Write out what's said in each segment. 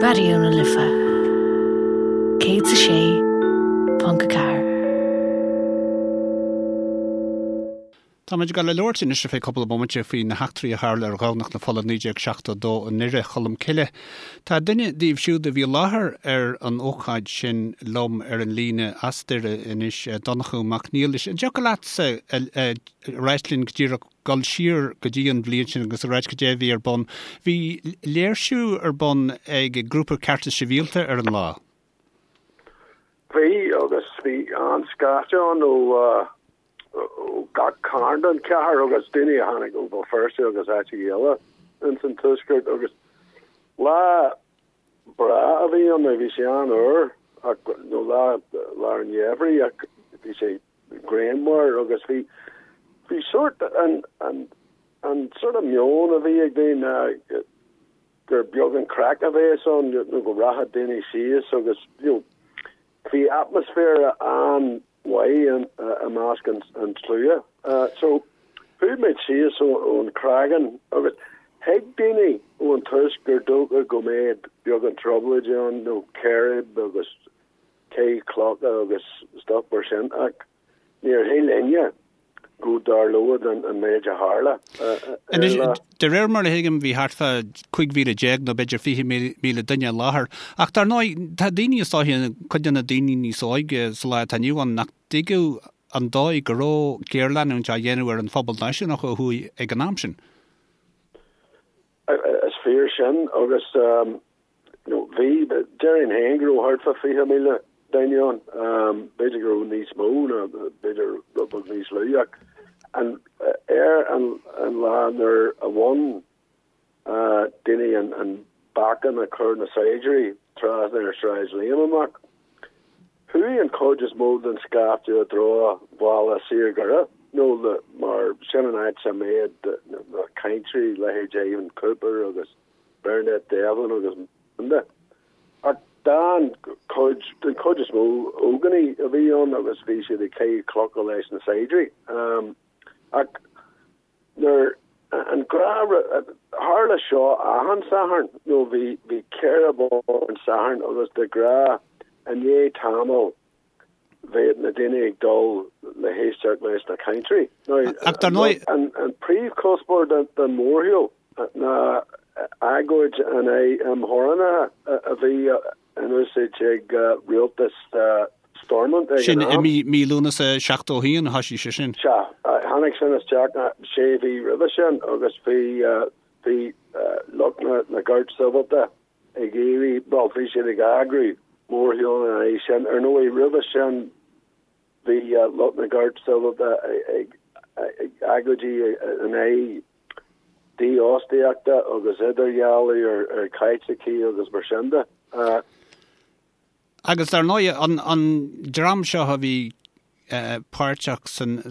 Raidió na Life 106.4. Táimid ag dul a labhairt anois ar feadh cúpla bomaite faoi na heachtraí a tharla ar Dhomhnach na Fola 1972 i nDoire Cholm Cille. Tá duine díobh siúd a bhí i láthair ar an ócáid sin liom ar an líne as Doire anois, Donnchadh Mac Niallais. An dtiocfadh leatsa a ráit linn go díreach dul siar go dtí an bhliain sin agus a ráit cad é a bhí ar bun? Bhí léirsiú ar bun ag grúpa Cearta Sibhialta ar an lá. Bhí, agus bhí an-scaifte ann ó ó gach cearn den chathair agus daoine a tháinig ó Bhéal Feirste agus áiteacha eile ins an tuaisceart agus lá breá a bhí ann, bhí sé an-fhuar ach nó lá lár an gheimhridh ach bhí sé grianmhar agus bhí bhí sórt an an an sort of meon a bhí ag daoine gur beag an craic a bheas ann nó go rachadh daoine síos agus you know bhí atmaisféar an mhaith i measc an tslua. So, chuaigh muid síos ón Chreagán agus thuig daoine ón tús gur dócha go mbeadh beagán trioblóide ann nó círéib agus caitheamh clocha agus stuff mar sin ach níor shíl éinne go dtarlódh an méid a tharla ar an lá. De réir mar a thuigim bhí thart fá 15,000 nó b'fhéidir 20,000 duine i láthair. Ach dar ndóigh tá daoine is dóiche, cuid de na daoine níos óige sa lá atá inniu ann nach dtuigeadh an dóigh go raibh géarleanúint á dhéanamh ar an phobal náisiúnach ó thuaidh ag an am sin. Is fíor sin agus bhí, déarfainn féin go raibh thart fá 20,000 duine ann, b'fhéidir go raibh níos mó nó b'fhéidir rud beag níos lú ach an, ar an lá nuair a bhain daoine an bacan a chuir na saighdiúirí trasna ar Shráid Liam amach, chuaigh an chuid is mó den scaifte i dtreo bhaile saor Dhoire nó mar sin an áit a mbeadh na cainteoirí, leithéid Ivan Cooper agus Bernadette Devlin agus mar sin de. Ach den chuid, den chuid is mó, ógánaigh a bhí ann agus bhí siad ag caitheamh clocha leis na saighdiúirí. Ach nuair an ghnáth, tharla seo achan Satharn, nó bhí, bhí círéib ann Satharn agus de ghnáth i ndiaidh tamaill bheadh na daoine ag dul le héisteacht leis na cainteoirí. Ach dar ndóigh. An príomhchuspóir den mhórshiúl ná agóid in aghaidh imtheorannaithe a bhí in úsáid ag rialtas Stormont ag an Sin i mí Lúnasa 71 a thoisigh sé sin. Sea, tháinig sin isteach sé mhí roimhe sin agus bhí bhí lucht na gceart sibhialta ag iarraidh, bhuel, bhí siad ag eagrú mórshiúl ina aghaidh sin. Ar ndóigh, roimhe sin bhí lucht na gceart sibhialta ag agóidí in aghaidh dífhostaíochta agus idirdhealú ar Chaitlicigh agus mar sin de. Agus dar ndóigh, an dream seo a bhí páirteach san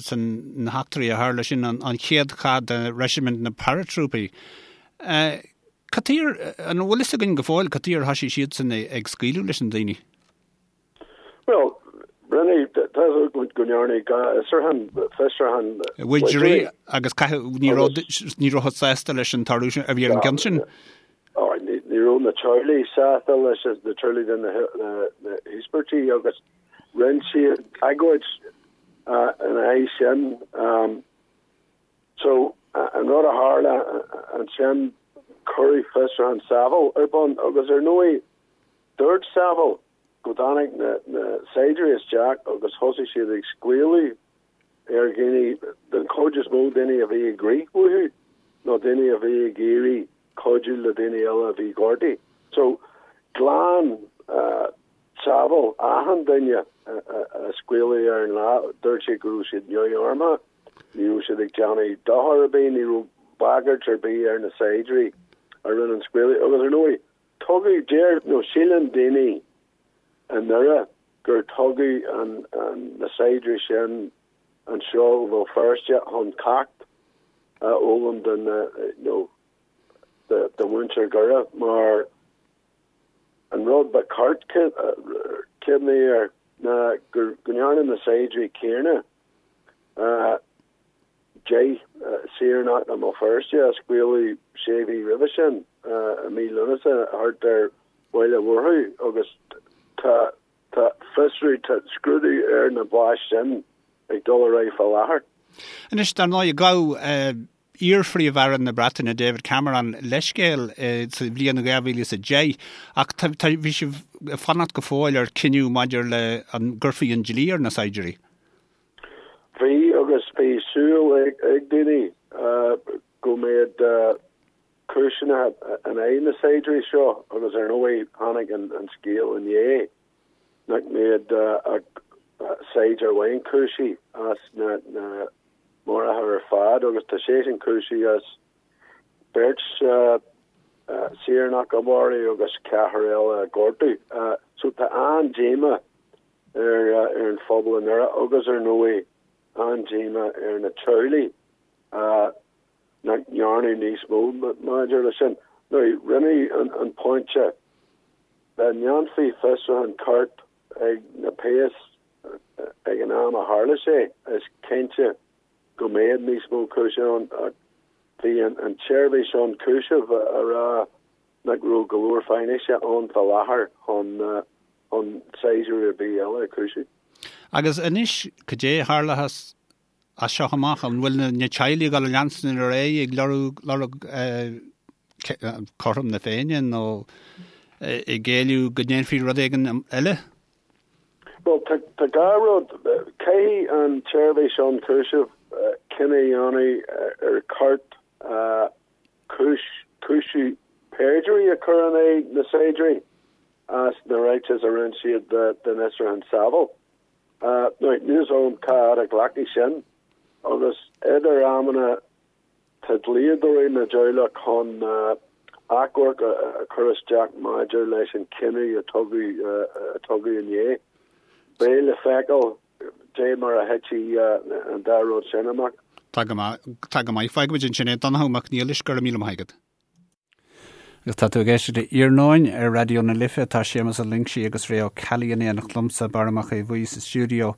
na heachtraí a tharla, sin an chéad chath de Reisimint na Paratrúpaí. Cad chuige, an bhfuil fhios againn go fóill cad chuige ar thoisigh siadsan ag scaoileadh leis na daoine? Bhuel, rinne, tá go ndearnadh fiosrúchán, fiosrúchán. Widgery agus caitheadh, ní raibh, ní rabhthas sásta leis an toradh a bhí ar an gceann sin. Ní raibh na teaghlaigh sásta leis, na teaghlaigh de na híospartaigh agus rinne siad agóid ina aghaidh sin. So, an rud a tharla ansin, cuireadh fiosrúchán Saville ar bun agus ar ndóigh dúirt Saville go dtáinig na saighdiúirí isteach agus thosaigh siad ag scaoileadh ar dhaoine, den chuid is mó daoine a bhí ag rith uathu nó daoine a bhí ag iarraidh cuidiú le daoine eile a bhí gortaithe. So, ghlan Saville achan duine a scaoileadh ar an lá, dúirt sé go raibh siad neamharmtha, ní raibh siad ag déanamh dochar ar bith, ní raibh bagairt ar bith ar na saighdiúirí a rinne an scaoileadh. Agus ar ndóigh, tugadh, deir nó síleann daoine i nDoire gur tugadh na saighdiúirí sin anseo ó Bhéal Feirste chun ceacht a fhoghlaim do na, nó do mhuintir Dhoire mar an rud ba cheart cuimhneamh air ná go ndearna na saighdiúirí céanna 10 saoránach i mBéal Feirste a scaoileadh sé mhí roimhe sin, i mí Lúnasa, thart ar. Bhaile Mhurchú agus tá tá fiosrú, tá scrúdú ar na báis sin ag dul ar aghaidh fá láthair. Anois, dar ndóigh, ghabh iar-Phríomh-Aire na Breataine, David Cameron, leithscéal sa bhliain 2010 ach tá, tá, bhí sibh ag fanacht go fóill ar cinneadh maidir le an gcuirfí an dlí ar na saighdiúirí. Bhí agus bhí súil ag daoine go mbeadh cúiseanna in aghaidh na saighdiúirí seo agus ar ndóigh tháinig an scéal inné nach mbeadh ach saighdiúir amháin cúisithe as na maruithe ar fad agus tá seisean cúisithe as beirt saoránach a mharú agus ceathrar eile a ghortú. So tá an-díomá ar an phobal i nDoire agus ar ndóigh an-díomá ar na teaghlaigh nach ndearnadh níos mó maidir leis sin. Now, rinneadh an pointe dá ndéanfaí fiosrúchán ceart ag na péas ag an am a tharla sé, is cinnte go mbeadh níos mó cúiseamh ann ach bhí an tseirbhís ionchúisimh ag rá nach raibh go leor faisnéise ann fá láthair chun chun saighdiúir ar bith eile a chúiseamh. Agus anois, cad é a tharlóchas as seo amach? An bhfuil na teaghlaigh ag dul a leanstan ar aghaidh ag lorg lorg cothrom na Féinne nó ag éileamh go ndéanfaí rud éigin eile? Bhuel, tá dhá rud. Caithfidh an tSeirbhís Ionchúisimh cinneadh a dhéanamh ar cheart cúis cúiseamh perjury a chur in aghaidh na saighdiúirí as na ráitis a rinne siad don fhiosrúchán Saville. Now, níl fhios agam cá fhad a ghlacfaidh sin agus idir amanna tá dlíodóirí na dteaghlach chun achomharc a chur isteach maidir leis an chinneadh a tugadh a tugadh inné. Beidh le feiceáil dé mar a thitfidh an dá rud sin amach. Tá go maith, tá go maith. Fágfaimid ansin é. Donnchadh Mac Niallais, go raibh míle maith agat. Agus tá tú ag éisteacht le Iarnóin ar Raidió na Life. Tá Séamus Ó Loingsigh agus Ray Ó Ceallaigh in éineacht liomsa, Barra Mac Aodha Bhuí sa stiúideo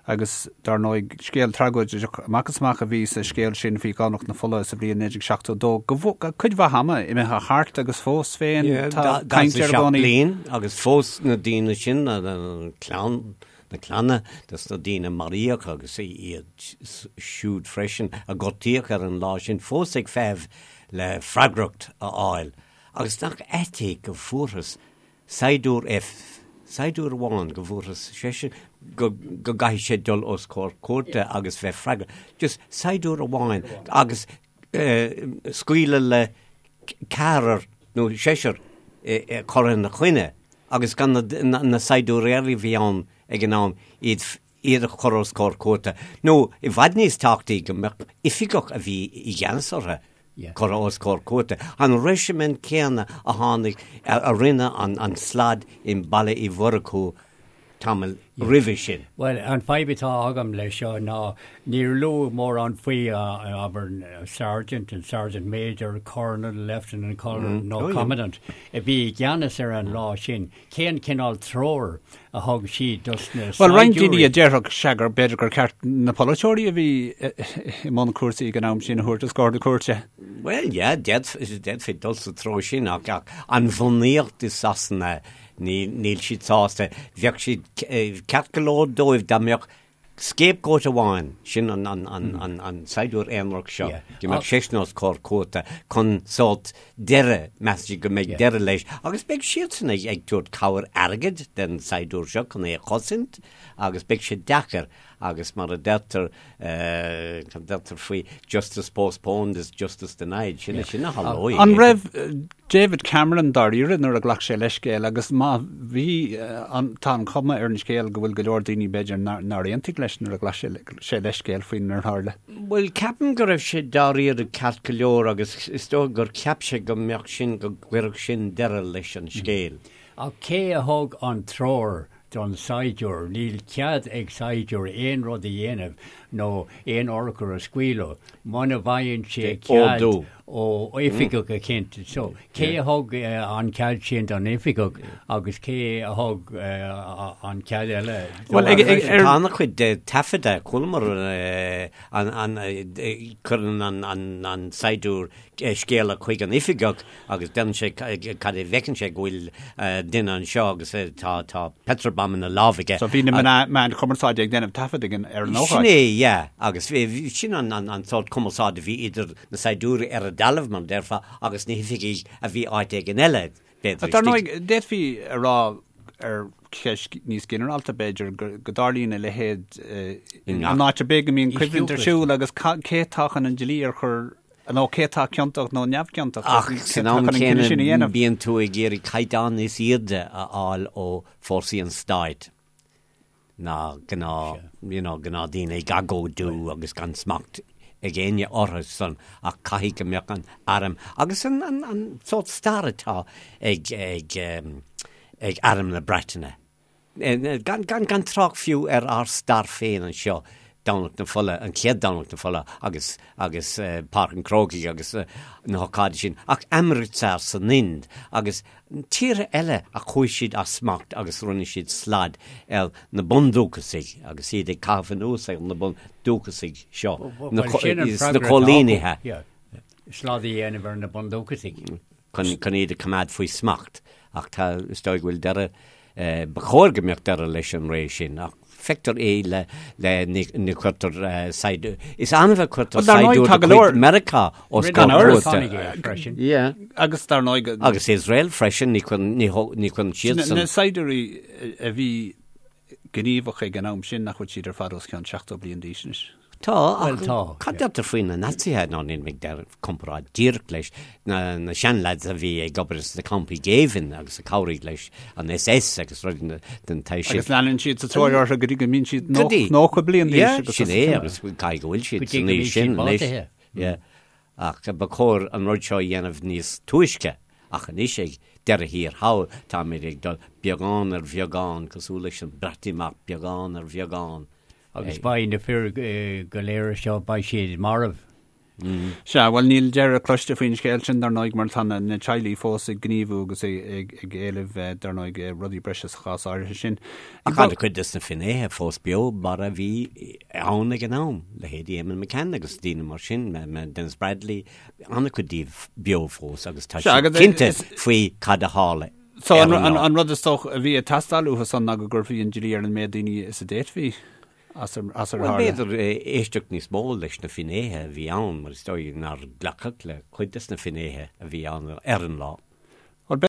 agus dar ndóigh scéal tragóideach amach is amach a bhí sa scéal sin faoi Dhomhnach na Fola sa bhliain 1972. Go cuid mhaith ama imithe thart agus fós féin tá caint air i gcónaí. bliain agus fós na daoine sin, na clann, na clanna dos na daoine a maraíodh agus iad siúd freisin a gortaíodh ar an lá sin fós ag feitheamh le freagracht a fháil agus nach ait é go bhfuarthas saighdiúir F, saighdiúir amháin, go bhfuarthas seisean go go gcaithfidh sé dul os comhair cúirte agus bheith freagrach, just saighdiúir amháin agus scaoileadh le ceathrar nó seisear curtha ina choinne agus gan na saighdiúirí eile a bhí ann ag an am iad iad a chur os comhair cúirte, nó i bhfad níos tábhachtaí go mbeadh oifigeach a bhí i gceannas orthu curtha os comhair cúirte. An reisimint céanna a tháinig, a rinne an slad i mBaile Uí Mhurchú tamall roimhe sin. Bhuel, an fadhb atá agam leis seo ná níor luadh mórán faoi abair sergeant and sergeant major, colonel, lieutenant colonel nó commandant a bhí i gceannas ar an lá sin. Cén cineál treoir a thug siad dos na Bhuel, roinnt daoine a déarfadh sea gur b'fhéidir gur ceart na polaiteoirí a bhí i mbun cúrsaí ag an am sin a thabhairt os comhair na cúirte. Bhuel, yeah, d'fhéadfaí dul sa treo sin ach an bhunaíocht i Sasana, níl siad sásta. Bheadh siad ceart go leor dóibh dá mbeadh Scapegoat amháin, sin an saighdiúir aonarach seo, go mbeadh seisean os comhair cúirte chun sórt deireadh, measann siad go mbeidh deireadh leis, agus beidh siadsan ag tabhairt cabhair airgid den saighdiúir seo chun é a chosaint agus beidh sé deacair agus mar a deirtear, cad a deirtear faoi justice postponed is justice denied, sin sin a tharlóidh. An raibh David Cameron dáiríre nuair a ghlac sé leithscéal agus má bhí, tá an chuma ar an scéal go bhfuil go leor daoine b'fhéidir nár aontaigh leis nuair a ghlac sé leithscéal faoinar tharla. Bhuel, ceapaim go raibh sé dáiríre ceart go leor agus is dóigh gur cheap sé go mbeadh sin, go gcuirfeadh sin deireadh leis an scéal. Ach cé a thug an treoir don saighdiúir? Níl cead ag saighdiúir aon rud a dhéanamh. nó aon urchar a scaoileadh muna bhfaigheann sé cead ó oifigeach eicínt. So, cé a thug an cead sin don oifigeach agus cé a thug an cead eile Bhuel, ag, ag, ar... Tá an-chuid de taifeadta, chualamar an, an, cuireann an, an, an saighdiúir scéala chuig an oifigeach agus deireann sé cad é bhfeiceann sé go bhfuil duine anseo agus tá tá petrol bomb ina lámh aige. So bhí na meáin chumarsáide ag déanamh taifead ag an ar an ócáid. Sin é, yeah, agus sin an an sórt cumarsáid a bhí idir na saighdiúirí ar an dtalamh, mar a déarfá, agus na hoifigigh a bhí áit éigin eile, b'fhéidir. Dar ndóigh, d'fhéadfaí a rá ar cheist níos ginearálta, b'fhéidir, go dtarlaíonn a leithéid in áit ar bith go mbíonn coimhlint ar siúl agus cé atá chun an dlí a chur nó cé atá ciontach nó neamhchiontach. Ach san am céanna bíonn tú ag iarraidh caighdeán níos airde a fháil ó fórsaí an stáit ná gnáth, you know, gnáthdhaoine ag agóidiú agus gan smacht ag éinne orthu san ach caithfidh go mbeadh an arm agus an, an, an sórt stair atá ag, ag, ag arm na Breataine. Gan, gan, gan trácht fiú ar ár stair féin anseo, Domhnach na Fola, an chéad Domhnach na Fola agus, agus Páirc an Chrócaigh agus na hócáidí sin, ach Amritsar san Ind agus tíortha eile a chuaigh siad as smacht agus rinne siad slad ar na bundúchasaigh agus iad ag caitheamh anuas ar na bundúchasaigh seo, na coilínithe. Slad a dhéanamh ar na bundúchasaigh. chun iad a choimeád faoi smacht, ach tá, is dóigh go bhfuil deireadh, ba chóir go mbeadh deireadh leis an ré sin, ach feictear é le, le, ní, ní chuirtear saighdiúir, is annamh a chuirtear saighdiúir de chuid Meiriceá os comhair cúirte. Yeah. Agus dar ndóigh. Agus Iosrael freisin, ní chuireann, ní, ní chuireann siadsan. Na saighdiúirí a bhí gníomhach ag an am sin nach bhfuil siad ar fad os cionn 70 bliain d'aois anois. Tá, ach cad deirtear faoi na Naitsithe, ná níl mé ag déanamh comparáid díreach leis na na seanleaids a bhí ag obair sna campaí géibhinn agus a chabhraigh leis an SS agus rudaí den tsaghas sin. Agus leanann siad sa tóir orthu go dtí go mbíonn siad 90 bliain d'aois. Yeah, sin é agus caithfidh go bhfuil siad san aois sin anois. Yeah. Ach ba chóir an rud seo a dhéanamh níos túisce, ach anois ag deireadh thiar thall táimid ag dul beagán ar bheagán, cosúil leis an Breatimeacht, beagán ar bheagán. Agus beidh na fir go léir seo, beidh siad marbh. Sea, bhuel níl deireadh cloiste faoin scéal sin, dar ndóigh, mar tá na teaghlaigh fós ag gníomhú agus ag éileamh, dar ndóigh, rudaí breise sa chás áirithe sin. Ach an-chuid de na finnéithe fós beo mar a bhí ann ag an am, leithéidí Eamonn McCann agus daoine mar sin, Denis Bradley, an-chuid díobh beo fós agus tá siad cinnte faoi cad a tharla. So an rud is dócha a bhí ag teastáil uathu san ná go gcuirfí an dlí ar an méid daoine is a d'fhéadfaí as ar tharla. Bhuel, b'fhéidir éisteacht níos mó leis na finnéithe a bhí ann, mar is dóigh nár glacadh le cuid des na finnéithe a bhí ann ar an lá.